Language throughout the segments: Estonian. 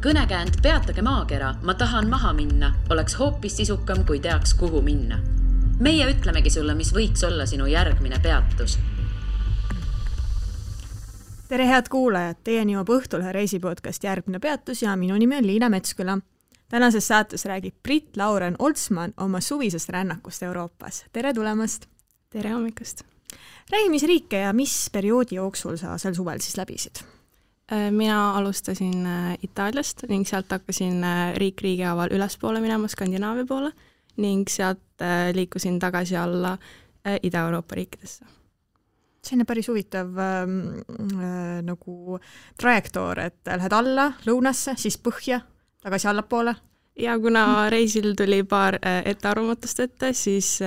Kõnekäänd Peatage maakera, ma tahan maha minna, oleks hoopis sisukam, kui teaks, kuhu minna. Meie ütlemegi sulle, mis võiks olla sinu järgmine peatus. Tere head kuulajad, teieni jõuab Õhtulehe reisipodcast Järgmine peatus ja minu nimi on Liina Metsküla. Tänases saates räägib Brit-Lauren Oltsman oma suvisest rännakust Euroopas. Tere tulemast! Tere hommikust! Räägi, mis riike ja mis perioodi jooksul sa sel suvel siis läbisid? Mina alustasin Itaaliast ning sealt hakkasin riigi haaval ülespoole minema Skandinaavia poole ning sealt liikusin tagasi alla Ida-Euroopa riikidesse. Selline päris huvitav nagu trajektoor, et lähed alla lõunasse, siis põhja, tagasi allapoole. Ja kuna reisil tuli paar ettearvamatust ette, siis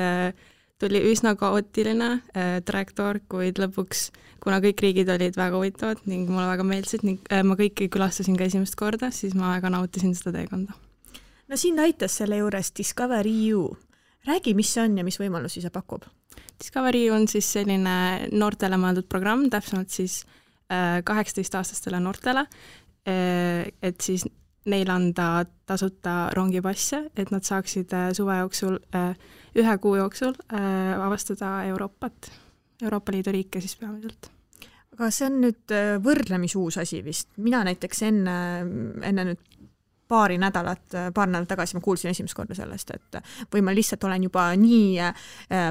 tuli üsna kaootiline trajektoor, kuid lõpuks, kuna kõik riigid olid väga huvitavad ning mulle väga meeldisid ning ma kõiki külastasin ka esimest korda, siis ma väga nautisin seda teekonda. No sind aitas selle juures Discovery U. Räägi, mis see on ja mis võimalusi see pakub? Discovery U on siis selline noortele mõeldud programm, täpsemalt siis 18-aastastele noortele, et siis neil anda tasuta rongipasse, et nad saaksid suve jooksul, 1 kuu jooksul avastada Euroopa Liidu riike siis peamiselt. Aga see on nüüd võrdlemisuus asi vist. Mina näiteks enne nüüd paar nädalat tagasi ma kuulsin esimest korda sellest, et või ma lihtsalt olen juba nii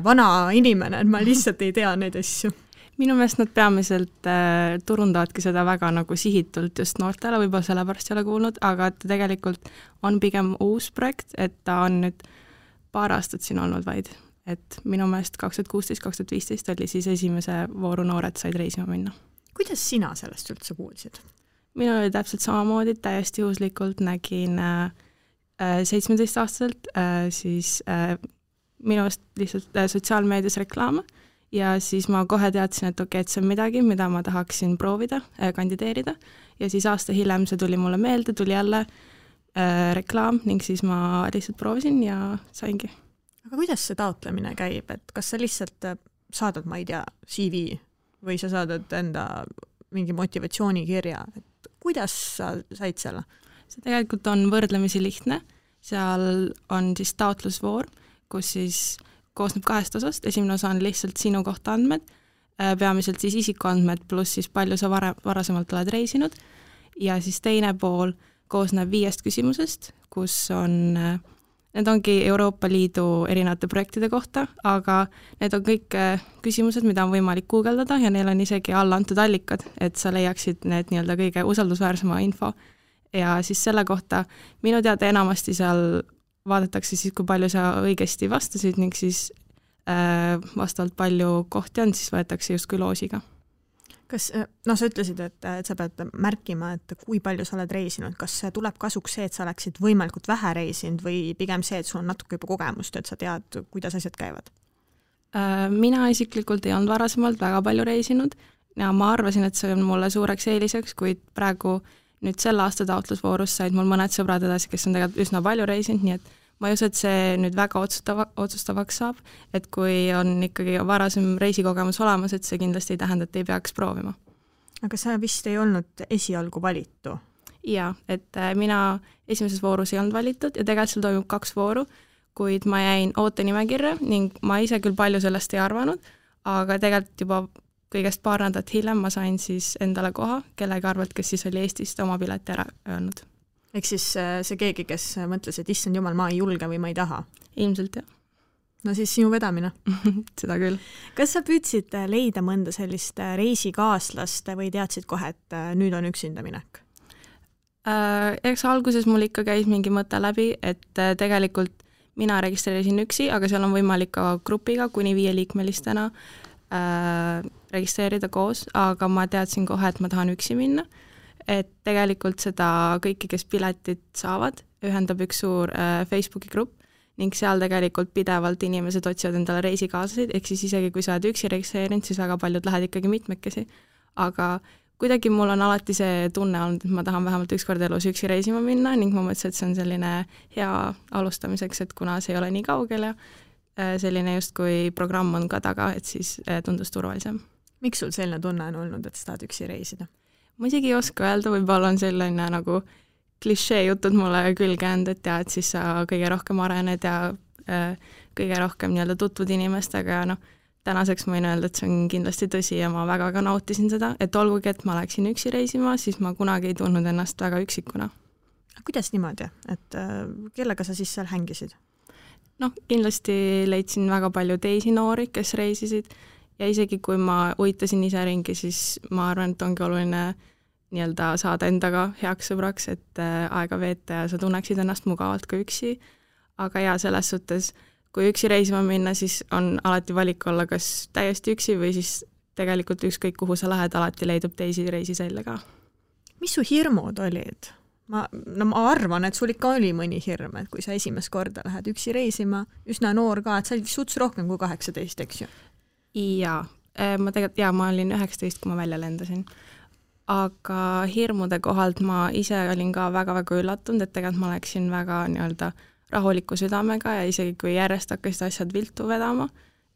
vana inimene, et ma lihtsalt ei tea neid asju. Minu meelest nad peamiselt turundavadki seda väga nagu sihitult just noortele, võib-olla sellepärast ei ole kuulnud, aga ta tegelikult on pigem uus projekt, et ta on nüüd paar aastat siin olnud vaid. Et minu meelest 2016-2015 oli siis esimese vooru noored said reisima minna. Kuidas sina sellest üldse kuulsid? Minul oli täpselt samamoodi, täiesti juhuslikult nägin 17-aastaselt siis minust lihtsalt sotsiaalmeedias reklaame ja siis ma kohe teadsin, et okei, et see on midagi, mida ma tahaksin proovida, kandideerida ja siis aasta hiljem see tuli mulle meelde, tuli jälle reklaam ning siis ma lihtsalt proovisin ja saingi. Aga kuidas see taotlemine käib, et kas sa lihtsalt saadad, ma ei tea, CV või sa saadad enda mingi motivatsioonikirja, et kuidas sa said selle? See tegelikult on võrdlemisi lihtne, seal on siis taotlusvoor, kus siis koosneb 2 osast, esimene osa on lihtsalt sinu kohta andmed, peamiselt siis isikuandmed pluss siis palju sa varasemalt oled reisinud ja siis teine pool koosneb 5 küsimusest, kus on, need ongi Euroopa Liidu erinevate projektide kohta, aga need on kõik küsimused, mida on võimalik guugeldada ja neil on isegi alla antud allikad, et sa leiaksid need nii-öelda kõige usaldusväärsema info. Ja siis selle kohta minu teada enamasti seal vaadatakse siis, kui palju sa õigesti vastasid ning siis vastavalt palju kohti on, siis võetakse justkui loosiga. Kas, sa ütlesid, et sa pead märkima, et kui palju sa oled reisinud, kas tuleb kasuks see, et sa oleksid võimalikult vähe reisinud või pigem see, et sul on natuke juba kogemust, et sa tead, kuidas asjad käivad? Mina isiklikult ei olnud varasemalt väga palju reisinud ja ma arvasin, et see on mulle suureks eeliseks, kuid praegu nüüd selle aasta taotlusvoorus said mul mõned sõbrad edasi, kes on tegelikult üsna palju reisinud, nii et ma ei usu, et see nüüd väga otsustavaks saab, et kui on ikkagi varasem reisikogemus olemas, et see kindlasti ei tähenda, et ei peaks proovima. Aga sa vist ei olnud esialgu valitu? Jaa, et mina esimeses voorus ei olnud valitud ja tegelikult seal toimub 2 vooru, kuid ma jäin ootenimekirja ning ma ise küll palju sellest ei arvanud, aga tegelikult juba kõigest paar nädalat hiljem ma sain siis endale koha, kellega arvalt, kes siis oli Eestist oma pileti ära öelnud. Ehk siis see keegi, kes mõtles, et issand jumal, ma ei julge või ma ei taha? Ilmselt, jah. No siis sinu vedamine. Seda küll. Kas sa püüdsid leida mõnda sellist reisikaaslast või teadsid kohe, et nüüd on üksinda minek? Eks alguses mul ikka käis mingi mõte läbi, et tegelikult mina registreerisin üksi, aga seal on võimalik ka grupiga kuni 5-liikmelistena registreerida koos, aga ma teadsin kohe, et ma tahan üksi minna. Et tegelikult seda kõiki, kes piletit saavad, ühendab üks suur Facebooki grupp ning seal tegelikult pidevalt inimesed otsivad endale reisikaaslasid, ehk siis isegi kui sa oled üksi registreerinud, siis väga paljud lähed ikkagi mitmekesi. Aga kuidagi mul on alati see tunne olnud, et ma tahan vähemalt ükskord elus üksi reisima minna ning ma mõtlesin, et see on selline hea alustamiseks, et kuna see ei ole nii kaugel ja selline just kui programm on ka taga, et siis tundus turvalisem. Miks sul selline tunne on olnud, et sa tahad üksi reisida? Ma isegi ei oska öelda, võib-olla on selline nagu klišee jutud mulle külge jäänud, et ja, et siis sa kõige rohkem arened ja kõige rohkem nii-öelda tutvud inimestega ja tänaseks ma võin öelda, et see on kindlasti tõsi ja ma väga ka nautisin seda, et olgugi, et ma läksin üksi reisima, siis ma kunagi ei tundnud ennast väga üksikuna. Kuidas niimoodi, et kellega sa siis seal hängisid? Kindlasti leidsin väga palju teisi noori, kes reisisid ja isegi kui ma uitasin ise ringi, siis ma arvan, et ongi oluline nii-öelda saada endaga heaks sõbraks, et aega veeta ja sa tunneksid ennast mugavalt ka üksi. Aga ja selles suhtes, kui üksi reisima minna, siis on alati valik olla kas täiesti üksi või siis tegelikult ükskõik kuhu sa lähed, alati leidub teisi reisiselle ka. Mis su hirmud olid? Ma arvan, et sul ikka oli mõni hirm, et kui sa esimest korda lähed üksi reisima, üsna noor ka, et sa olid suts rohkem kui 18, eks ju? Jaa, ma olin 19, kui ma välja lendasin. Aga hirmude kohalt ma ise olin ka väga-väga üllatunud, et tegelikult ma läksin väga nii-öelda rahuliku südamega ja isegi kui järjest hakkasid asjad viltu vedama,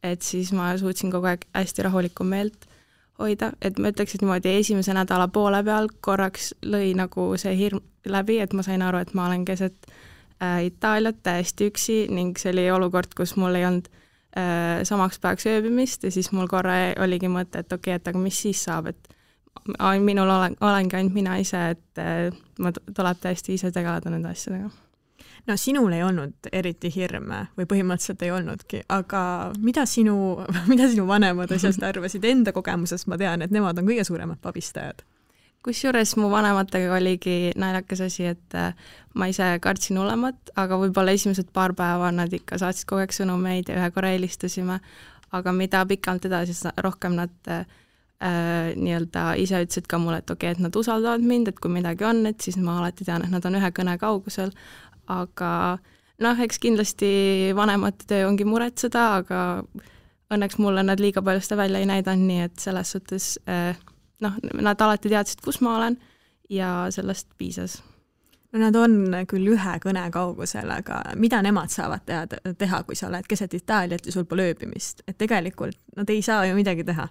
et siis ma suutsin kogu aeg hästi rahulikku meelt hoida, et ma ütleks, et niimoodi esimese nädala poole peal korraks lõi nagu see hirm läbi, et ma sain aru, et ma olen keset Itaaliat täiesti üksi ning see oli olukord, kus mul ei olnud samaks päevaks ööbimist ja siis mul korra oligi mõte, et okei, et aga mis siis saab, et minul olengi ainult mina ise, et ma tuleb täiesti ise tegeleda nende asjadega. No sinul ei olnud eriti hirme või põhimõtteliselt ei olnudki, aga mida sinu vanemad asjast arvasid? Enda kogemusest ma tean, et nemad on kõige suuremad pabistajad. Kusjuures mu vanematega oligi naljakas asi, et ma ise kartsin olemat, aga võib-olla esimesed paar päeva nad ikka saatsid kogu aeg sõnumeid ja ühe korra helistasime, aga mida pikalt edasi, rohkem nad nii-öelda ise ütlesid ka mulle, et okei, et nad usaldavad mind, et kui midagi on, et siis ma alati tean, et nad on ühe kõne kaugusel, aga eks kindlasti vanemate töö ongi muretseda, aga õnneks mulle nad liiga palju seda välja ei näidanud, nii et selles suhtes nad alati teadsid, kus ma olen ja sellest piisas. No nad on küll ühe kõne kaugusel, aga mida nemad saavad teha, kui sa oled keset Itaaliat ja sul pole ööbimist? Et tegelikult nad ei saa ju midagi teha.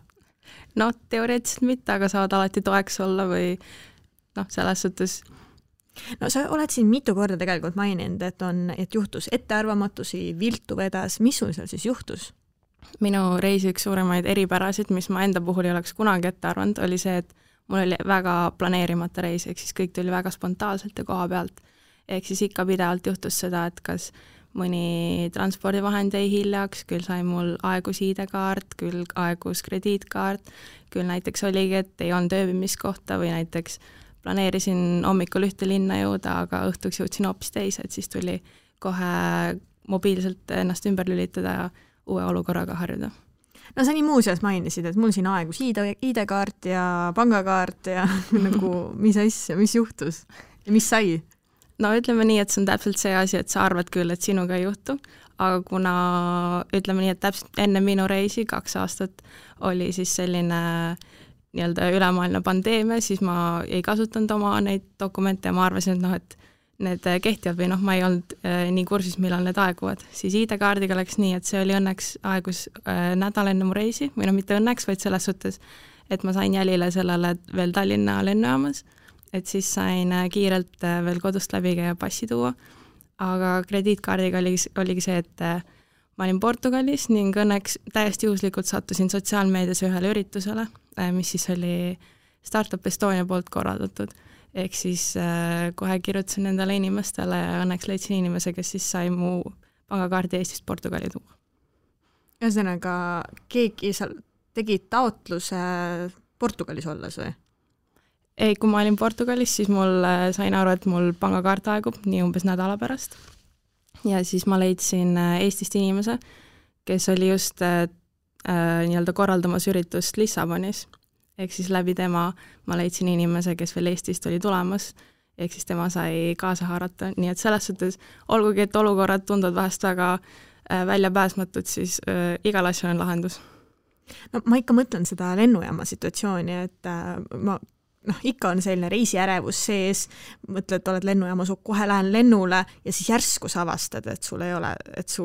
Teoreetiliselt mitte, aga saavad alati toeks olla või selles suhtes. No sa oled siin mitu korda tegelikult maininud, et juhtus ettearvamatusi, viltu vedas. Mis sul seal siis juhtus? Minu reisi üks suuremaid eripärasid, mis ma enda puhul ei oleks kunagi ette arvanud, oli see, et mul oli väga planeerimata reis, ehk siis kõik tuli väga spontaanselt ja koha pealt. Ehk siis ikka pidevalt juhtus seda, et kas mõni transpordivahend jäi hiljaks, küll sai mul aegus ID-kaart, küll aegus krediitkaart, küll näiteks oligi, et ei olnud ööbimiskohta või näiteks planeerisin hommikul ühte linna jõuda, aga õhtuks jõudsin hoopis teise, et siis tuli kohe mobiilselt ennast ümber lülitada ja uue olukorraga harjuda. No sa nii muuseas mainisid, et mul siin aegus ID-kaart ja pangakaart ja nagu mis asja, mis juhtus ja mis sai? No ütleme nii, et see on täpselt see asi, et sa arvad küll, et sinuga ei juhtu, aga kuna ütleme nii, et täpselt enne minu reisi 2 aastat oli siis selline nii-öelda ülemaailmne pandeemia, siis ma ei kasutanud oma neid dokumente ja ma arvasin, et need kehtivad või ma ei olnud nii kursis, millal need aeguvad. Siis ID-kaardiga läks nii, et see oli õnneks aegus nädal enne mu reisi, või mitte õnneks, vaid selles suhtes, et ma sain jälile sellele veel Tallinna lennujaamas, et siis sain kiirelt veel kodust läbi käia passi tuua, aga krediitkaardiga oligi see, et ma olin Portugalis ning õnneks täiesti juhuslikult sattusin sotsiaalmeedias ühele üritusele, mis siis oli Startup Estonia poolt korraldatud. Ehk siis kohe kirjutasin nendele inimestele ja õnneks leidsin inimese, kes siis sai mu pangakaardi Eestist Portugali tuua. Ühesõnaga, keegi tegi taotluse Portugalis olles või? Ei, kui ma olin Portugalis, siis mul sain aru, et mul pangakaart aegub nii umbes nädala pärast. Ja siis ma leidsin Eestist inimese, kes oli just nii-öelda korraldamas üritust Lissabonis. Ehk siis läbi tema ma leidsin inimese, kes veel Eestist oli tulemas, ehk siis tema sai kaasa haarata. Nii et selles suhtes, olgugi et olukorrad tunduvad vahest väga väljapääsmatud, siis igal asjal on lahendus. No ma ikka mõtlen seda lennujaama situatsiooni, et ikka on selline reisiärevus sees, mõtled, oled lennujaamas, kohe lähen lennule ja siis järsku sa avastad, et sul ei ole, et su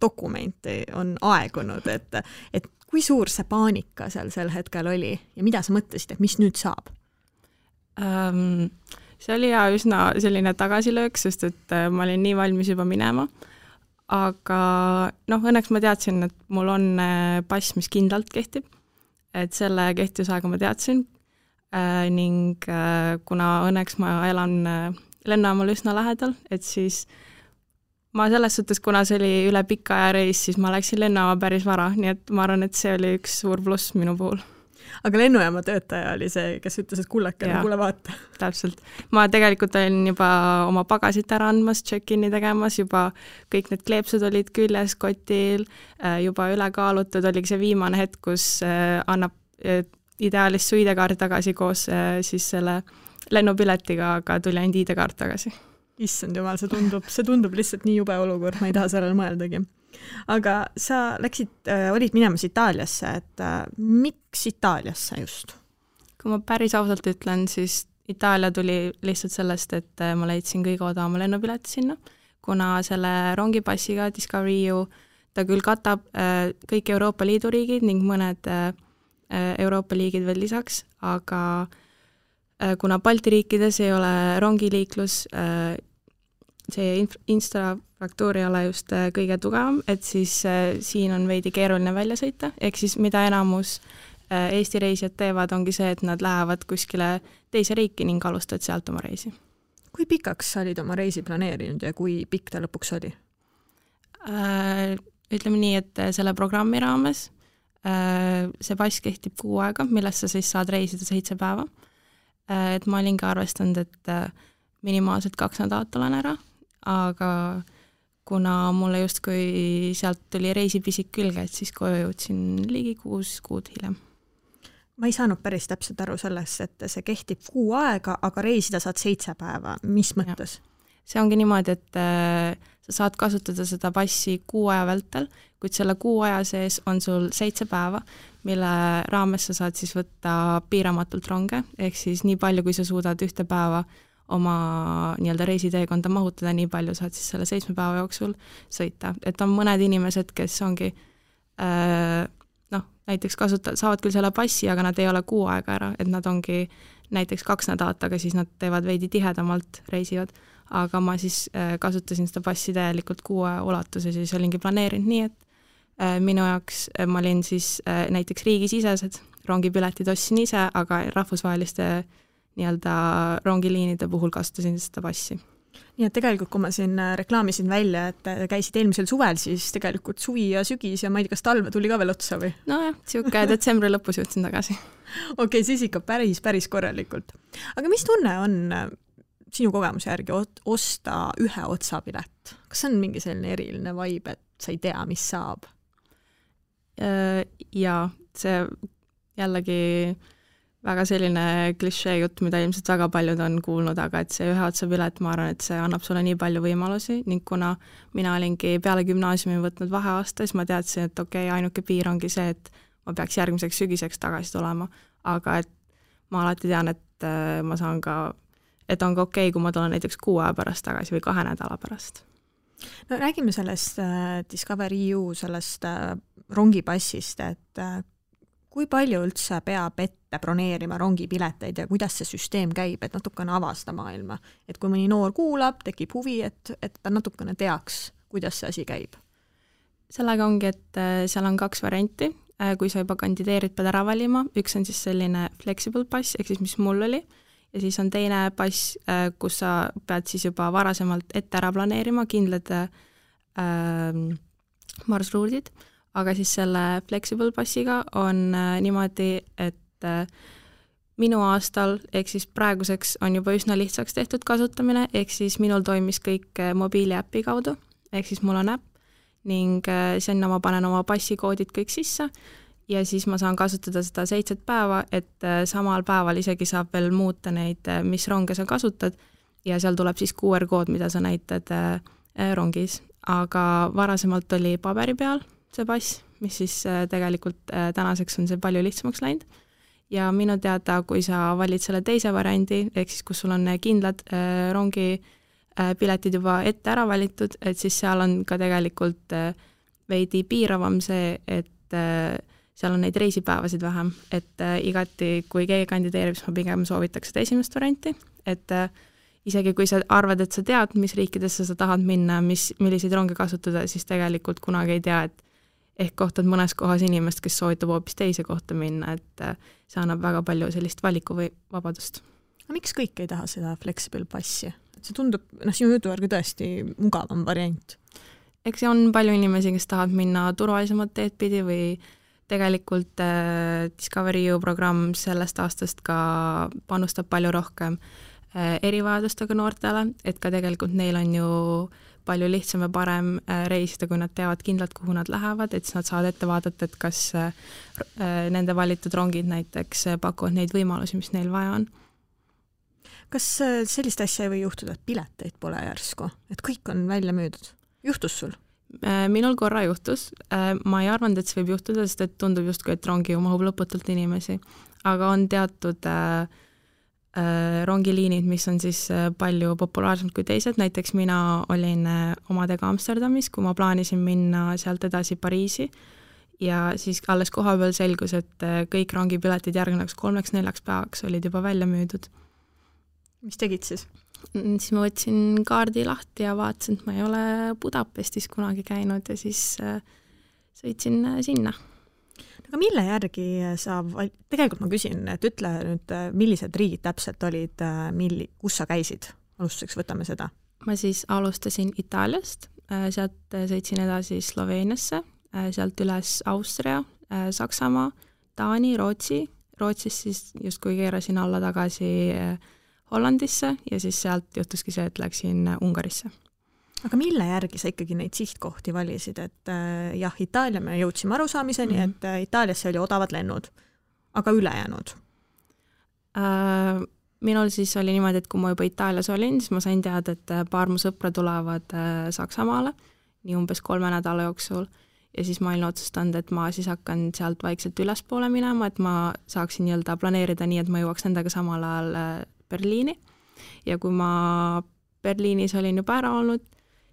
dokumenti on aegunud, et kui suur see paanika seal sel hetkel oli ja mida sa mõtlesid, et mis nüüd saab? see oli üsna selline tagasilöök, sest et ma olin nii valmis juba minema. Aga õnneks ma teadsin, et mul on pass, mis kindlalt kehtib. Et selle kehtivusaega ma teadsin ning kuna õnneks ma elan lennujaamal üsna lähedal, et siis ma selles suhtes, kuna see oli üle pika aja reis, siis ma läksin lennujaama päris vara, nii et ma arvan, et see oli üks suur pluss minu puhul. Aga lennujaama töötaja oli see, kes ütles, et kullakene, kuule vaata. Täpselt. Ma tegelikult olin juba oma pagasit ära andmas, check-in'i tegemas, juba kõik need kleepsud olid küljes kotil, juba üle kaalutud, oligi see viimane hetk, kus annab ideaalis su ID-kaart tagasi koos siis selle lennupiletiga, aga tuli ainult ID-kaart tagasi. Issand jumal, see tundub lihtsalt nii jube olukord, ma ei taha sellele mõeldagi. Aga sa olid minemas Itaaliasse, et miks Itaaliasse just? Kui ma päris ausalt ütlen, siis Itaalia tuli lihtsalt sellest, et ma leidsin kõige odavama lennupileti sinna, kuna selle rongipassiga Discovery EU ta küll katab kõik Euroopa Liidu riigid ning mõned Euroopa liigid veel lisaks, aga kuna Balti riikides ei ole rongiliiklus, see infrastruktuur ei ole just kõige tugevam, et siis siin on veidi keeruline välja sõita, ehk siis mida enamus Eesti reisijad teevad, ongi see, et nad lähevad kuskile teise riiki ning alustavad sealt oma reisi. Kui pikaks sa olid oma reisi planeerinud ja kui pikk ta lõpuks oli? Ütleme nii, et selle programmi raames see pass kehtib 6 aega, millest sa siis saad reisida 7 päeva. Et ma olin ka arvestanud, et minimaalselt 2 nädalat olen ära, aga kuna mulle justkui sealt tuli reisipisik külge, et siis koju jõudsin ligi 6 kuud hiljem. Ma ei saanud päris täpselt aru sellest, et see kehtib 6 aega, aga reisida saad 7 päeva. Mis mõttes? See ongi niimoodi, et sa saad kasutada seda passi 6 aja vältel, kuid selle 6 aja sees on sul 7 päeva, mille raames sa saad siis võtta piiramatult ronge, ehk siis nii palju, kui sa suudad ühte päeva oma nii-öelda reisiteekonda mahutada, nii palju saad siis selle 7 päeva jooksul sõita. Et on mõned inimesed, kes ongi näiteks saavad küll selle passi, aga nad ei ole 6 aega ära, et nad ongi näiteks 2 nädalat, aga siis nad teevad veidi tihedamalt reisivad. Aga ma siis kasutasin seda passi täielikult 6 aja ulatuses ja siis olingi planeerinud nii, et minu jaoks ma olin siis näiteks riigisisesed rongipiletid ostsin ise, aga rahvusvaheliste nii-öelda rongiliinide puhul kasutasin seda passi. Nii et tegelikult, kui ma siin reklaamisin välja, et käisid eelmisel suvel, siis tegelikult suvi ja sügis ja ma ei tea, kas talve tuli ka veel otsa või? Nojah, siuke detsembri lõpus jõudsin tagasi. Okei, siis ikka päris korralikult. Aga mis tunne on sinu kogemuse järgi osta ühe otsapilet? Kas on mingi selline eriline vibe, et sa ei tea, mis saab? Jaa, see jällegi väga selline klišee jutt, mida ilmselt väga paljud on kuulnud, aga et see ühe otsapilet, ma arvan, et see annab sulle nii palju võimalusi ning kuna mina olingi peale gümnaasiumi võtnud vaheaasta, siis ma teadsin, et ainuke piir ongi see, et ma peaks järgmiseks sügiseks tagasi tulema, aga et ma alati tean, et ma saan ka, et on ka okei, kui ma tulen näiteks 6 aja pärast tagasi või 2 nädala pärast. No räägime sellest Discovery EU, sellest rongipassist, et kui palju üldse peab ette broneerima rongipileteid ja kuidas see süsteem käib, et natukene avasta maailma. Et kui mõni noor kuulab, tekib huvi, et ta natukene teaks, kuidas see asi käib. Sellega ongi, et seal on 2 varianti. Kui sa juba kandideerid, pead ära valima. Üks on siis selline flexible pass, ehk siis mis mul oli. Ja siis on teine pass, kus sa pead siis juba varasemalt ette ära planeerima kindlad marsruudid. Aga siis selle flexible passiga on niimoodi, et minu aastal, ehk siis praeguseks on juba üsna lihtsaks tehtud kasutamine, ehk siis minul toimis kõik mobiiliäppi kaudu, ehk siis mul on äpp ning sinna ma panen oma passikoodid kõik sisse ja siis ma saan kasutada seda 7 päeva, et samal päeval isegi saab veel muuta neid, mis ronge sa kasutad ja seal tuleb siis QR-kood, mida sa näitad rongis, aga varasemalt oli paberi peal see pass, mis siis tegelikult tänaseks on see palju lihtsamaks läinud. Ja minu teada, kui sa valid selle teise variandi, ehk siis kus sul on kindlad rongi piletid juba ette ära valitud, et siis seal on ka tegelikult veidi piiravam see, et seal on neid reisipäevasid vähem, et igati, kui keegi kandideerib, siis ma pigem soovitaks seda esimest varianti, et isegi kui sa arvad, et sa tead, mis riikidesse sa tahad minna, milliseid ronge kasutada, siis tegelikult kunagi ei tea, et ehk kohtad mõnes kohas inimest, kes soovitab hoopis teise kohta minna, et see annab väga palju sellist valiku või vabadust. Miks kõik ei taha seda flexible passi? See tundub, sinu jutu järgi tõesti mugavam variant. Eks see on palju inimesi, kes tahavad minna turvalisemad teed pidi või tegelikult Discovery EU programm sellest aastast ka panustab palju rohkem erivajadustega noortele, et ka tegelikult neil on ju palju lihtsam ja parem reisida, kui nad teavad kindlalt, kuhu nad lähevad, et siis nad saavad ette vaadata, et kas nende valitud rongid näiteks pakuvad neid võimalusi, mis neil vaja on. Kas sellist asja ei või juhtuda, et pileteid pole järsku, et kõik on välja müüdud? Juhtus sul? Minul korra juhtus. Ma ei arvanud, et see võib juhtuda, sest et tundub justkui, et rongi mahub lõputult inimesi, aga on teatud rongiliinid, mis on siis palju populaarsemad kui teised, näiteks mina olin omadega Amsterdamis, kui ma plaanisin minna sealt edasi Pariisi ja siis alles kohapeal selgus, et kõik rongipiletid järgnevaks 3-4 päevaks olid juba välja müüdud. Mis tegid siis? Siis ma võtsin kaardi lahti ja vaatasin, et ma ei ole Budapestis kunagi käinud ja siis sõitsin sinna. Aga mille järgi tegelikult ma küsin, et ütle nüüd, millised riigid täpselt olid, kus sa käisid? Alustuseks võtame seda. Ma siis alustasin Itaaliast, sealt sõitsin edasi Sloveeniasse, sealt üles Austria, Saksamaa, Taani, Rootsi. Rootsis siis justkui keerasin alla tagasi Hollandisse ja siis sealt juhtuski see, et läksin Ungarisse. Aga mille järgi sa ikkagi neid sihtkohti valisid, et jah, Itaalia me jõudsime arusaamiseni, et Itaaliasse oli odavad lennud, aga ülejäänud? Minul siis oli niimoodi, et kui ma juba Itaalias olin, siis ma sain teada, et paar mu sõpra tulevad Saksamaale, nii umbes 3 nädala jooksul, ja siis ma olin otsustanud, et ma siis hakkan sealt vaikselt ülespoole minema, et ma saaksin planeerida nii, et ma jõuaks nendega samal ajal Berliini, ja kui ma Berliinis olin juba ära olnud,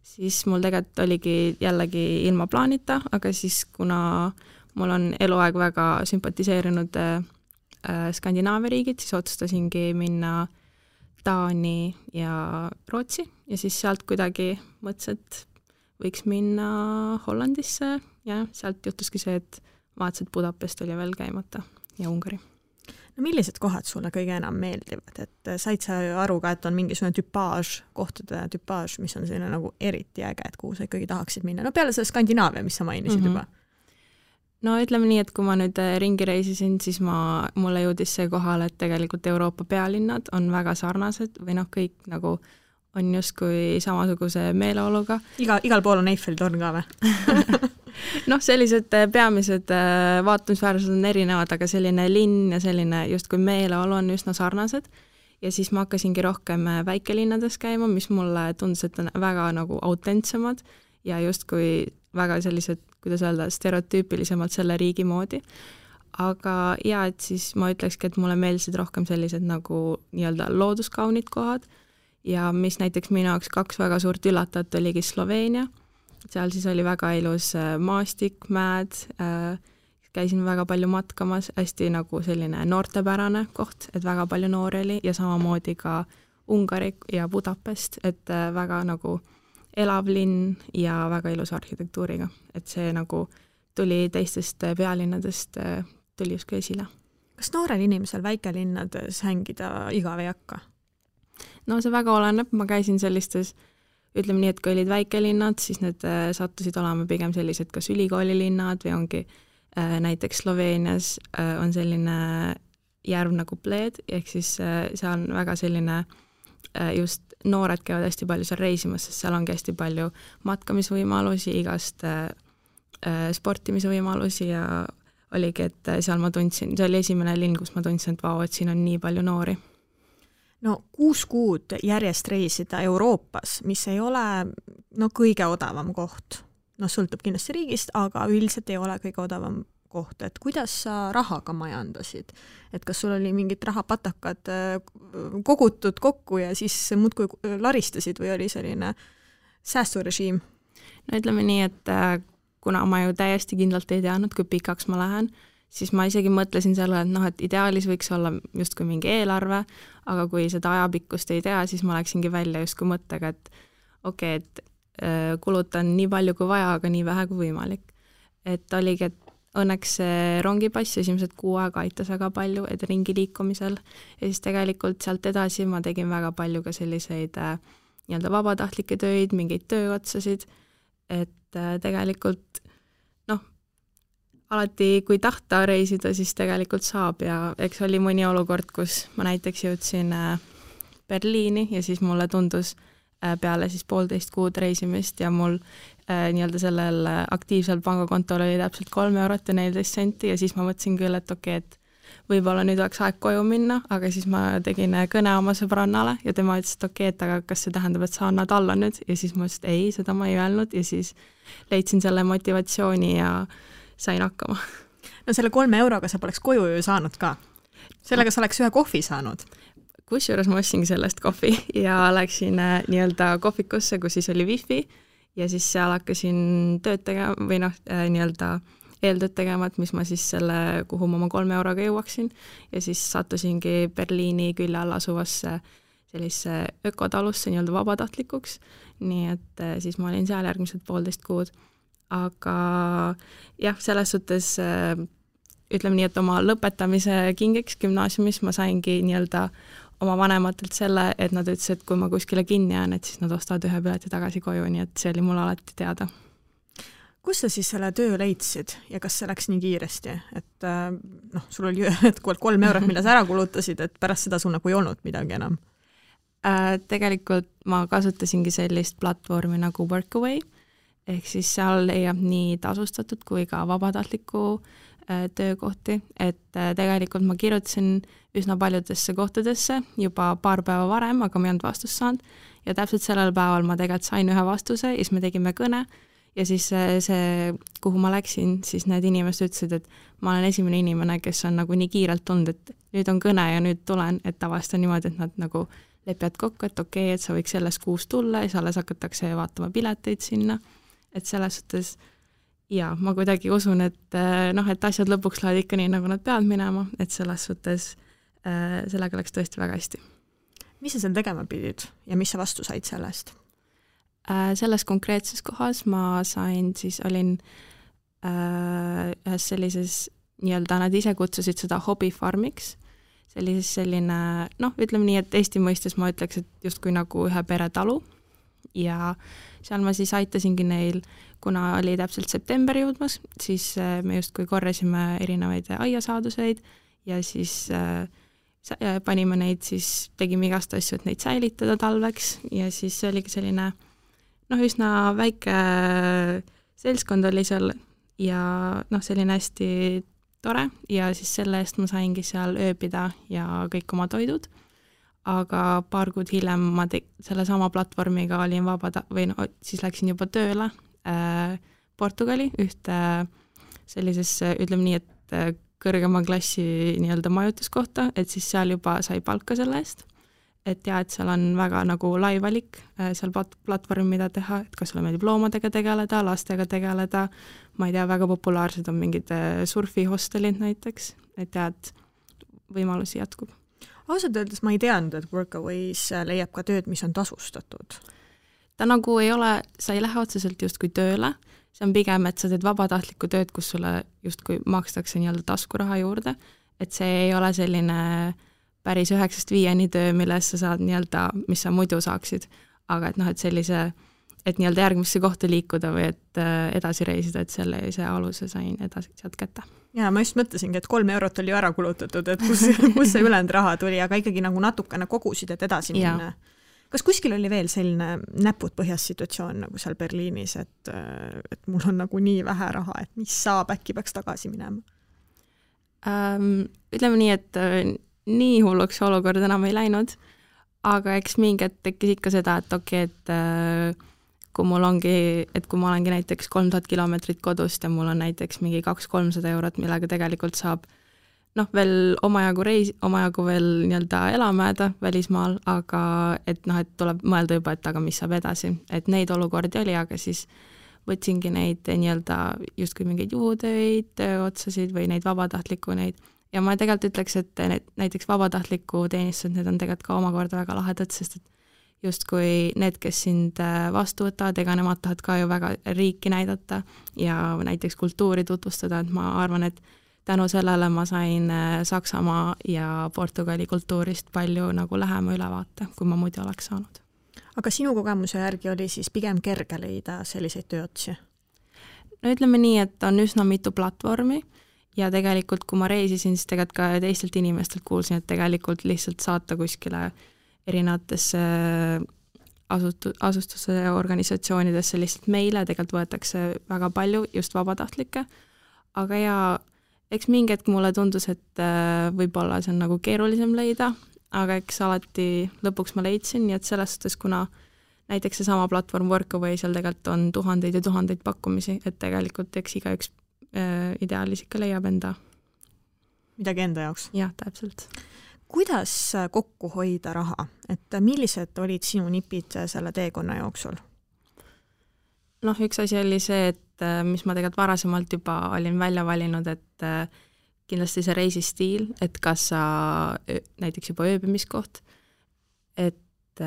siis mul tegelikult oligi jällegi ilma plaanita, aga siis kuna mul on eluaeg väga sümpatiseerinud Skandinaavia riigid, siis otsustasingi minna Taani ja Rootsi ja siis sealt kuidagi mõtlesin, et võiks minna Hollandisse ja sealt juhtuski see, et vaatasin, et Budapest oli veel käimata ja Ungari. No millised kohad sulle kõige enam meeldivad, et said sa aru ka, et on mingisugune tüpaaž, kohtade tüpaaž, mis on selline nagu eriti äge, et kuhu sa ikkagi tahaksid minna? No peale selle Skandinaavia, mis sa mainisid juba. No ütleme nii, et kui ma nüüd ringi reisisin, siis mulle jõudis see kohal, et tegelikult Euroopa pealinnad on väga sarnased või kõik nagu on justkui samasuguse meeleoluga. Igal pool on Eiffeli torn ka või? Sellised peamised vaatamisväärsused on erinevad, aga selline linn ja selline justkui meeleolu on üsna sarnased. Ja siis ma hakkasingi rohkem väikelinnades käima, mis mulle tundus, et on väga nagu autentsemad ja justkui väga sellised, kuidas öelda, stereotüüpilisemalt selle riigi moodi. Aga et siis ma ütlekski, et mulle meeldisid rohkem sellised nagu nii-öelda looduskaunid kohad ja mis näiteks minu jaoks 2 väga suurt üllatajat oligi Sloveenia. Seal siis oli väga ilus maastik, mäed, käisin väga palju matkamas, hästi nagu selline noortepärane koht, et väga palju noori oli ja samamoodi ka Ungari ja Budapest, et väga nagu elav linn ja väga ilus arhitektuuriga, et see nagu tuli teistest pealinnadest, tuli justkui esile. Kas noorel inimesel väikelinnades hängida igav ei hakka? No see väga oleneb, ma käisin sellistes ütleme nii, et kui olid väikelinnad, siis need sattusid olema pigem sellised kas ülikoolilinnad või ongi näiteks Sloveenias on selline järv nagu Bled, ehk siis seal on väga selline just noored käivad hästi palju seal reisimas, sest seal ongi hästi palju matkamisvõimalusi, igast sportimise võimalusi ja oligi, et seal ma tundsin, see oli esimene linn, kus ma tundsin, et vau, et siin on nii palju noori. No 6 kuud järjest reisida Euroopas, mis ei ole kõige odavam koht. Sõltub kindlasti riigist, aga üldiselt ei ole kõige odavam koht. Et kuidas sa rahaga majandasid? Et kas sul oli mingid rahapatakad kogutud kokku ja siis muudkui laristasid või oli selline säästurežiim? No ütleme nii, et kuna ma ju täiesti kindlalt ei teadnud, kui pikaks ma lähen, siis ma isegi mõtlesin selle, et et ideaalis võiks olla justkui mingi eelarve, aga kui seda ajapikkust ei tea, siis ma läksingi välja justkui mõttega, et okei, et kulutan nii palju kui vaja, aga nii vähe kui võimalik. Et oligi, et õnneks see rongipass esimesed 6 aega aitas väga palju, et ringi liikumisel ja siis tegelikult sealt edasi ma tegin väga palju ka selliseid nii-öelda vabatahtlikke töid, mingeid tööotsasid, et tegelikult alati kui tahta reisida, siis tegelikult saab ja eks oli mõni olukord, kus ma näiteks jõudsin Berliini ja siis mulle tundus peale siis 1,5 kuud reisimist ja mul nii-öelda sellel aktiivsel pangakontol oli täpselt 3 eurot ja 14 senti ja siis ma mõtlesin küll, et okei, et võib-olla nüüd oleks aeg koju minna, aga siis ma tegin kõne oma sõbrannale ja tema ütles, et okei, et aga kas see tähendab, et sa annad alla nüüd ja siis ma ütlesin, et ei, seda ma ei öelnud ja siis leidsin selle motivatsiooni ja sain hakkama. No selle 3 euroga sa poleks koju ju saanud ka. Sellega sa oleks 1 kohvi saanud. Kusjuures ma ostsingi sellest kohvi ja läksin nii-öelda kohvikusse, kus siis oli wifi ja siis seal hakkasin tööd tegema või nii-öelda eeltööd tegema, et mis ma siis selle, kuhu ma oma 3 euroga jõuaksin ja siis sattusingi Berliini külje all asuvasse sellise ökotalusse nii-öelda vabatahtlikuks, nii et siis ma olin seal järgmised 1,5 kuud. Aga jah, selles suhtes ütleme nii, et oma lõpetamise kingiks gümnaasiumis ma saingi nii-öelda oma vanematelt selle, et nad ütlesid, et kui ma kuskile kinni jään, et siis nad ostavad 1 pileti tagasi koju, nii et see oli mul alati teada. Kus sa siis selle töö leidsid ja kas see läks nii kiiresti, et sul oli 3 eurot, mille sa ära kulutasid, et pärast seda sul nagu ei olnud midagi enam? Tegelikult ma kasutasingi sellist platvormi nagu Workaway, ehk siis seal leiab nii tasustatud kui ka vabatahtliku töökohti, et tegelikult ma kirjutasin üsna paljudesse kohtadesse juba 2 päeva varem, aga ma ei olnud vastust saanud ja täpselt sellel päeval ma tegelikult sain 1 vastuse ja siis me tegime kõne ja siis see, kuhu ma läksin, siis need inimesed ütlesid, et ma olen esimene inimene, kes on nagu nii kiirelt tulnud, et nüüd on kõne ja nüüd tulen, et tavaliselt on niimoodi, et nad nagu lepivad kokku, et okei, et sa võiks selles kuus tulla ja siis alles hakatakse vaatama pileteid sinna. Et selles suhtes, ja ma kuidagi usun, et et asjad lõpuks lähevad ikka nii, nagu nad peavad minema, et selles suhtes sellega läks tõesti väga hästi. Mis sa seal tegema pidid ja mis sa vastu said sellest? Selles konkreetses kohas ma sain, siis olin ühes sellises, nii-öelda nad ise kutsusid seda hobifarmiks, selline, ütleme nii, et Eesti mõistes ma ütleks, et justkui nagu ühe peretalu ja seal ma siis aitasingi neil, kuna oli täpselt september jõudmas, siis me justkui korrasime erinevaid aiasaaduseid ja siis panime neid, siis tegime igast asju, et neid säilitada talveks ja siis see oligi selline üsna väike seltskond oli seal ja selline hästi tore ja siis selle eest ma saingi seal ööbida ja kõik oma toidud. Aga 2 kuud hiljem ma selle sama platvormiga olin siis läksin juba tööle Portugali ühte sellisesse, ütleme nii, et kõrgema klassi nii-öelda majutuskohta, et siis seal juba sai palka selle eest. Et ja, et seal on väga nagu lai valik seal platvormi, mida teha, et kas sulle meeldib loomadega tegeleda, lastega tegeleda, ma ei tea, väga populaarsed on mingid surfihostelid näiteks, et ja, et võimalusi jätkub. Ausalt öeldes ma ei teadnud, et Workaways leiab ka tööd, mis on tasustatud. Ta nagu ei ole, sa ei lähe otseselt justkui tööle, see on pigem, et sa teed vabatahtlikku tööd, kus sulle justkui makstakse nii-öelda taskuraha juurde, et see ei ole selline päris 9-5 töö, milles sa saad nii-öelda, mis sa muidu saaksid, aga et et sellise, et nii-öelda järgmisse kohta liikuda või et edasi reisida, et see aluse sain edasi sealt kätte. Ja ma just mõtlesingi, et 3 eurot oli ju ära kulutatud, et kus see ülejäänud raha tuli, aga ikkagi nagu natukene kogusid, et edasi minna. Kas kuskil oli veel selline näpud põhjas situatsioon nagu seal Berliinis, et mul on nagu nii vähe raha, et mis saab, äkki peaks tagasi minema? Ütleme nii, et nii hulluks olukord enam ei läinud, aga eks mingi tekkis ikka seda, et okei, et kui ma olengi näiteks 3000 kilomeetrit kodust ja mul on näiteks mingi 200-300 eurot, millega tegelikult saab veel omajagu veel nii-öelda elamääda välismaal, aga et tuleb mõelda juba, et aga mis saab edasi. Et neid olukordi oli, aga siis võtsingi neid nii-öelda justkui mingeid juhutöid, tööotsasid või neid vabatahtliku neid. Ja ma tegelikult ütleks, et näiteks vabatahtliku teenistused, need on tegelikult ka omakorda väga lahedad, sest et justkui need, kes sind vastu võtavad, ega nemad tahavad ka ju väga riiki näidata ja näiteks kultuuri tutvustada, et ma arvan, et tänu sellele ma sain Saksamaa ja Portugali kultuurist palju nagu lähema ülevaate, kui ma muidu oleks saanud. Aga sinu kogemuse järgi oli siis pigem kerge leida selliseid tööotsi? No ütleme nii, et on üsna mitu platvormi ja tegelikult kui ma reisisin, siis tegelikult ka teistelt inimestelt kuulsin, et tegelikult lihtsalt saata kuskile erinevatesse asustuse organisatsioonidesse lihtsalt meile, tegelikult võetakse väga palju just vabatahtlikke, aga ja eks mingi hetk mulle tundus, et võib-olla see on nagu keerulisem leida, aga eks alati lõpuks ma leidsin, nii et selles suhtes, kuna näiteks see sama platvorm Workaway, seal tegelikult on tuhandeid ja tuhandeid pakkumisi, et tegelikult eks igaüks ideaalis ikka leiab enda. Midagi enda jaoks? Jah, täpselt. Kuidas kokku hoida raha? Et millised olid sinu nipid selle teekonna jooksul? Noh, üks asi oli see, et mis ma tegelikult varasemalt juba olin välja valinud, et kindlasti see reisistiil, et kas sa näiteks juba ööbimiskoht, et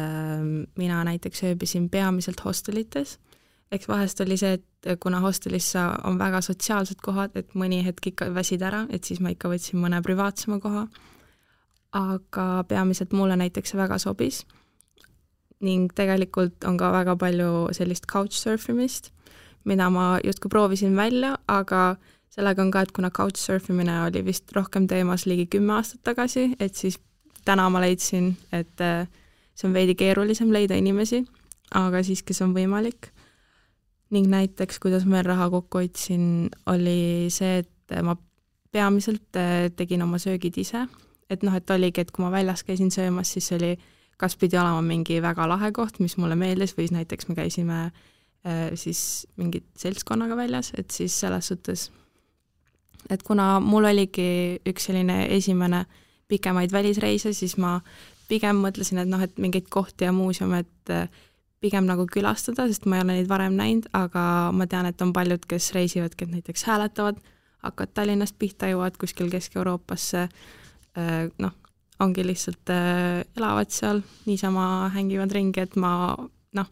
mina näiteks ööbisin peamiselt hostelites, eks vahest oli see, et kuna hostelis on väga sotsiaalsed kohad, et mõni hetk ikka väsid ära, et siis ma ikka võtsin mõne privaatsema koha, aga peamiselt mulle näiteks väga sobis ning tegelikult on ka väga palju sellist couchsurfimist, mida ma justkui proovisin välja, aga sellega on ka, et kuna couchsurfimine oli vist rohkem teemas ligi 10 aastat tagasi, et siis täna ma leidsin, et see on veidi keerulisem leida inimesi, aga siiski see on võimalik. Ning näiteks, kuidas ma raha kokku hoidsin, oli see, et ma peamiselt tegin oma söögid ise, et noh, et oligi, et kui ma väljas käisin söömas, siis oli kas pidi olema mingi väga lahe koht, mis mulle meeldis, või näiteks me käisime siis mingit seltskonnaga väljas, et siis selles suhtes, et kuna mul oligi üks selline esimene pikemaid välisreise, siis ma pigem mõtlesin, et noh, et mingeid kohti ja muuseume, et pigem nagu külastada, sest ma ei ole neid varem näinud, aga ma tean, et on paljud, kes reisivadki, et näiteks hääletavad, hakkavad Tallinnast pihta, jõuavad kuskil Kesk-Euroopasse, noh, ongi lihtsalt elavad seal, niisama hängivad ringi, et ma, noh,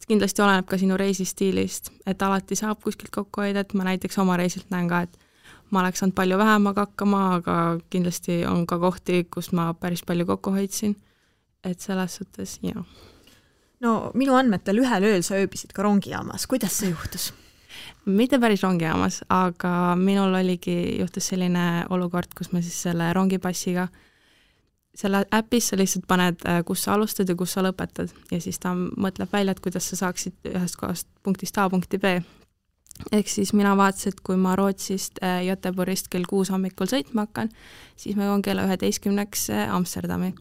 kindlasti oleneb ka sinu reisistiilist, et alati saab kuskilt kokku hoida, et ma näiteks oma reisilt näen ka, et ma oleks saanud palju vähemaga hakkama, aga kindlasti on ka kohti, kus ma päris palju kokku hoidsin, et selles suhtes, jah. No minu andmetel ühel ööl sa ööbisid ka rongijaamas, kuidas see juhtus? Mitte päris rongijaamas, aga minul juhtus selline olukord, kus ma siis selle rongipassiga, selle äpis sa lihtsalt paned, kus sa alustad ja kus sa lõpetad ja siis ta mõtleb välja, et kuidas sa saaksid ühest kohast punktist A punkti B. Ehk siis mina vaatasin, et kui ma Rootsist Göteborgist kell 6 hommikul sõitma hakkan, siis ma joon kella 11 Amsterdami.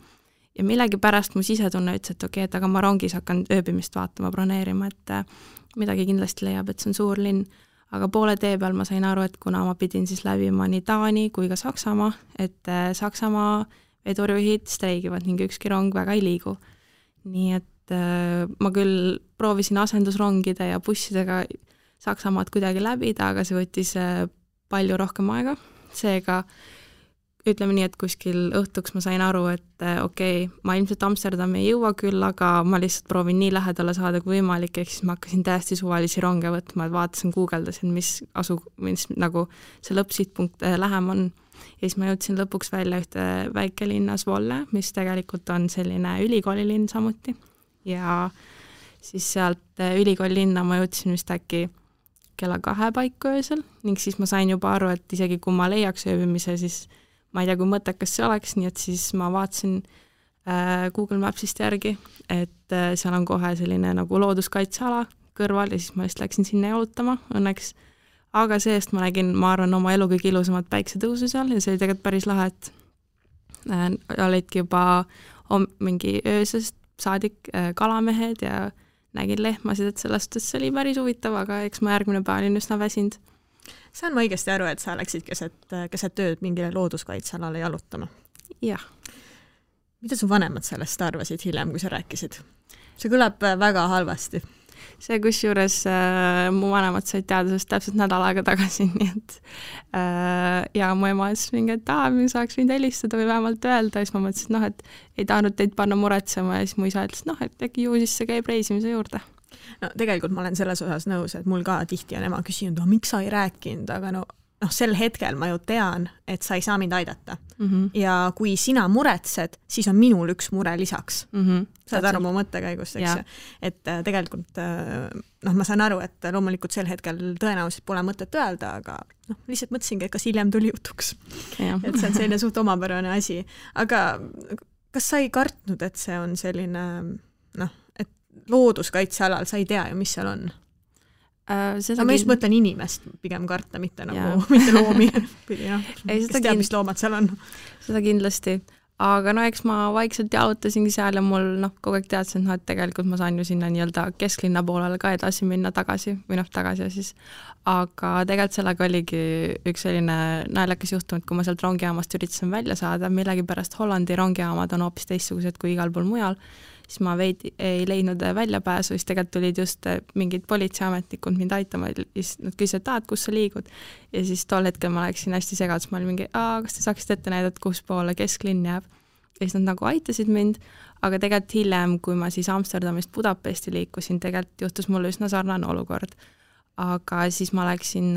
Ja millegi pärast mu sisetunne ütles, et okei, et aga ma rongis hakkan ööbimist vaatama, broneerima, et midagi kindlasti leiab, et see on suur linn. Aga poole tee peal ma sain aru, et kuna ma pidin siis läbima nii Taani kui ka Saksamaa, et Saksamaa vedurijuhid streigivad ning ükski rong väga ei liigu. Nii et ma küll proovisin asendusrongide ja bussidega Saksamaad kuidagi läbida, aga see võttis palju rohkem aega. Seega ütleme nii, et kuskil õhtuks ma sain aru, et okei, ma ilmselt Amsterdami ei jõua küll, aga ma lihtsalt proovin nii lähedale saada kui võimalik, ehk siis ma hakkasin täiesti suvalisi ronge võtma, et vaatasin, guugeldasin, mis nagu see lõppsihtpunkt lähem on. Ja siis ma jõudsin lõpuks välja ühte väikelinna Zwolle, mis tegelikult on selline ülikoolilinn samuti. Ja siis sealt ülikoolilinna ma jõudsin vist äkki kella 2 paiku öösel ning siis ma sain juba aru, et isegi kui ma leiaks ööbimise, siis ma ei tea, kui mõttekas see oleks, nii et siis ma vaatasin Google Mapsist järgi, et seal on kohe selline nagu looduskaitseala kõrval ja siis ma just läksin sinna jalutama õnneks. Aga seest ma nägin, ma arvan, oma elu kõige ilusamat päiksetõusu seal ja see oli tegelikult päris lahe, et olidki juba mingi öösest saadik kalamehed ja nägin lehmasid, et sellest see oli päris huvitav, aga eks ma järgmine päev olin üsna väsinud. Saan ma õigesti aru, et sa läksid keset tööd mingile looduskaitsealale jalutama? Jah. Mida su vanemad sellest arvasid hiljem, kui sa rääkisid? See kõlab väga halvasti. see kusjuures mu vanemad said teada sellest täpselt nädal aega tagasi, nii et ja mu ema ütles mingi, et me saaks võinud helistada või vähemalt öelda, ja siis ma mõtlesin, et ei tahtnud teid panna muretsema ja siis mu isa ütles, et äkki ju siis see käib reisimise juurde. No tegelikult ma olen selles osas nõus, et mul ka tihti on ema küsinud, miks sa ei rääkinud, aga sel hetkel ma ju tean, et sa ei saa mind aidata. Ja kui sina muretsed, siis on minul üks mure lisaks. Saad aru mu mõttekäigust, eks ju. Et tegelikult ma saan aru, et loomulikult sel hetkel tõenäoliselt pole mõtet öelda, aga lihtsalt mõtlesingi, et kas hiljem tuli jutuks. Et see on selline suht omapärane asi. Aga kas sa ei kartnud, et see on selline, et looduskaitsealal sa ei tea ju, mis seal on? Ma just mõtlen inimest pigem karta, mitte mitte loomi. Kes teab, mis loomad seal on? Seda kindlasti. Aga eks ma vaikselt jaotasingi seal ja mul kogu aeg teadsin, et tegelikult ma saan ju sinna nii-öelda kesklinna poolele ka edasi minna tagasi või tagasi siis. Aga tegelikult sellega oligi üks selline naljakas juhtum, et kui ma sealt rongijaamast üritasin välja saada, millegipärast Hollandi rongijaamad on hoopis teistsugused kui igal pool mujal, siis ma veidi ei leidnud väljapääsu, siis tegelikult tulid just mingid politseiametnikud mind aitama, siis nad küsisid, et kus sa liigud. Ja siis tol hetkel ma läksin hästi segadus, ma olin mingi, kas te saaksite ette näidata, kus poole kesklinn jääb. Ja siis nad aitasid mind, aga tegelikult hiljem, kui ma siis Amsterdamist Budapesti liikusin, tegelikult juhtus mulle üsna sarnane olukord. Aga siis ma läksin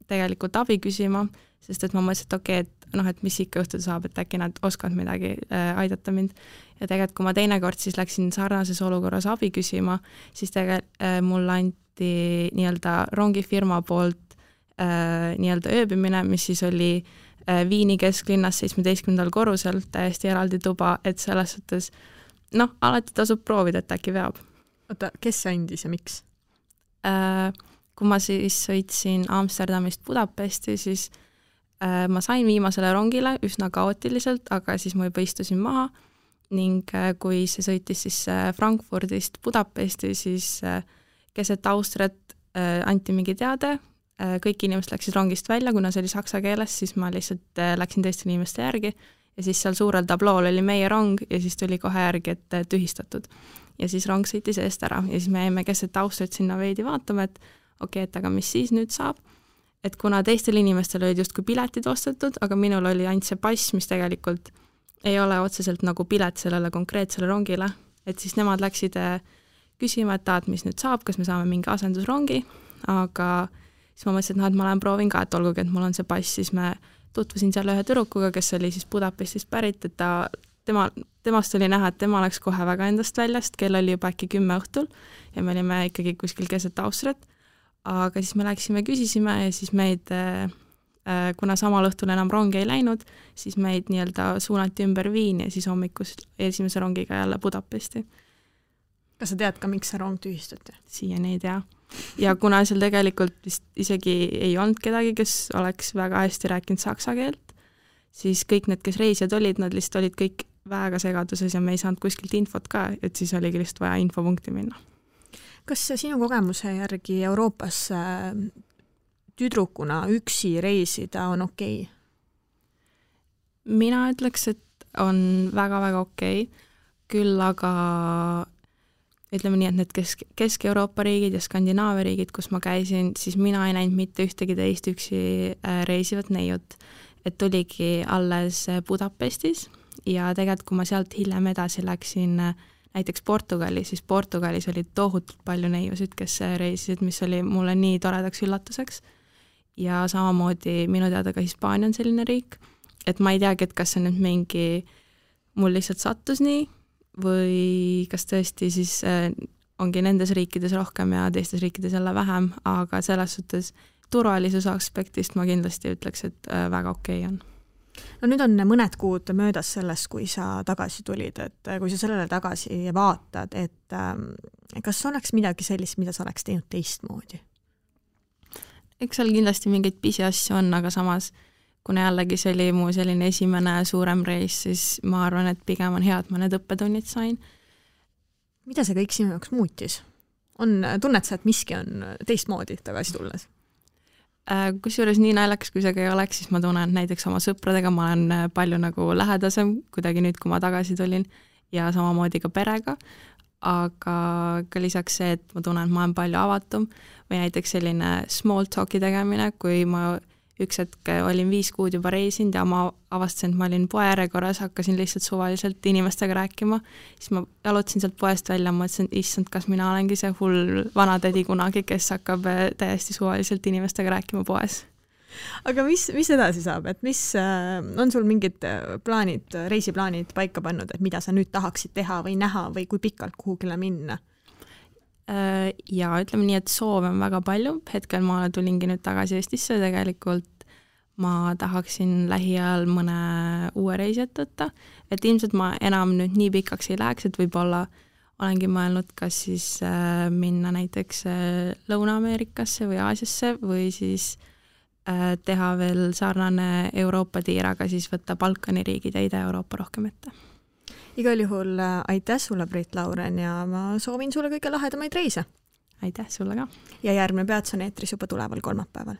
tegelikult abi küsima, sest et ma mõtlesin, et mis ikka juhtuda saab, et äkki nad oskavad midagi aidata mind. Ja tegelikult, kui ma teinekord siis läksin sarnases olukorras abi küsima, siis tegelikult mulle anti nii-öelda rongifirma poolt nii-öelda ööbimine, mis siis oli Viini kesklinnas 17. korrusel, täiesti eraldi tuba, et selles suhtes, alati tasub proovida, et äkki veab. Oota, kes andis ja miks? Kui ma siis sõitsin Amsterdamist Budapesti, siis ma sain viimasele rongile üsna kaootiliselt, aga siis ma juba istusin maha ning kui see sõitis siis Frankfurdist Budapesti, siis keset Austriat anti mingi teade, kõik inimesed läksid rongist välja, kuna see oli saksa keeles, siis ma lihtsalt läksin teiste inimeste järgi ja siis seal suurel tablool oli meie rong ja siis tuli kohe järgi, et tühistatud. Ja siis rong sõitis eest ära ja siis me jäime keset Austriat sinna veidi vaatama, et et aga mis siis nüüd saab? Et kuna teistel inimestel olid justkui piletid ostetud, aga minul oli ainult see pass, mis tegelikult ei ole otseselt nagu pilet sellele konkreetsele rongile, et siis nemad läksid küsima, et mis nüüd saab, kas me saame mingi asendusrongi, aga siis ma mõtlesin, et ma proovin ka, et olgugi, et mul on see pass, siis me tutvusin seal ühe tüdrukuga, kes oli siis Budapestist pärit, et temast oli näha, et tema läks kohe väga endast väljast, kell oli juba äkki 10 õhtul ja me olime ikkagi kuskil keset Austriat. Aga siis me läksime, küsisime ja siis meid, kuna samal õhtul enam rongi ei läinud, siis meid nii-öelda suunati ümber Viini ja siis hommikus esimese rongiga jälle Budapesti. Kas sa tead ka, miks see rong tühistati? Siiani ei tea. Ja kuna seal tegelikult vist isegi ei olnud kedagi, kes oleks väga hästi rääkinud saksa keelt, siis kõik need, kes reisijad olid, nad lihtsalt olid kõik väga segaduses ja me ei saanud kuskilt infot ka, et siis oligi lihtsalt vaja infopunkti minna. Kas sinu kogemuse järgi Euroopas tüdrukuna üksi reisida on okei? Mina ütleks, et on väga-väga okei. Küll aga ütleme nii, et need Kesk-Euroopa riigid ja Skandinaavia riigid, kus ma käisin, siis mina ei näinud mitte ühtegi teist üksi reisivat neiut. Et tuligi alles Budapestis ja tegelikult, kui ma sealt hiljem edasi läksin näiteks Portugali, siis Portugalis oli tohutult palju neiusid, kes reisisid, mis oli mulle nii toredaks üllatuseks. Ja samamoodi minu teada ka Hispaania on selline riik, et ma ei teagi, et kas see nüüd mingi mul lihtsalt sattus nii või kas tõesti siis ongi nendes riikides rohkem ja teistes riikides jälle vähem, aga selles suhtes turvalisuse aspektist ma kindlasti ütleks, et väga okei on. No nüüd on mõned kuud möödas sellest, kui sa tagasi tulid, et kui sa sellele tagasi vaatad, et kas oleks midagi sellist, mida sa oleks teinud teistmoodi? Eks seal kindlasti mingeid pisiasju on, aga samas, kuna jällegi see oli mu selline esimene suurem reis, siis ma arvan, et pigem on hea, et ma need õppetunnid sain. Mida see kõik sinu jaoks muutis? Tunned sa, et miski on teistmoodi tagasi tulles? Kusjuures nii naljakas, kui see ka ei oleks, siis ma tunnen näiteks oma sõpradega, ma olen palju nagu lähedasem kuidagi nüüd, kui ma tagasi tulin ja samamoodi ka perega, aga ka lisaks see, et ma tunnen, et ma olen palju avatum või näiteks selline small talk'i tegemine, kui ma üks hetk olin 5 kuud juba reisinud ja ma avastasin, et ma olin poe järjekorras, hakkasin lihtsalt suvaliselt inimestega rääkima, siis ma jalutasin sealt poest välja, mõtlesin, et issand, kas mina olengi see hull vanatädi kunagi, kes hakkab täiesti suvaliselt inimestega rääkima poes. Aga mis edasi saab, et mis on sul mingid plaanid, reisiplaanid paika pannud, et mida sa nüüd tahaksid teha või näha või kui pikalt kuhugile minna? Ja ütleme nii, et soove on väga palju, hetkel ma tulingi nüüd tagasi Eestisse, tegelikult ma tahaksin lähiajal mõne uue reisi ette võtta, et ilmselt ma enam nüüd nii pikaks ei läheks, et võib-olla olengi mõelnud, kas siis minna näiteks Lõuna-Ameerikasse või Aasiasse või siis teha veel sarnane Euroopa tiir, aga siis võtta Balkani riigid ja Ida-Euroopa rohkem ette. Igal juhul aitäh sulle, Brit Lauren, ja ma soovin sulle kõige lahedamaid reise. Aitäh sulle ka. Ja järgmine Peats on eetris juba tuleval kolmapäeval.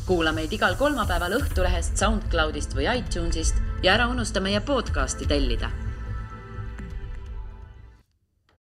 Kuula meid igal kolmapäeval Õhtulehest, SoundCloudist või iTunesist ja ära unusta meie podcasti tellida.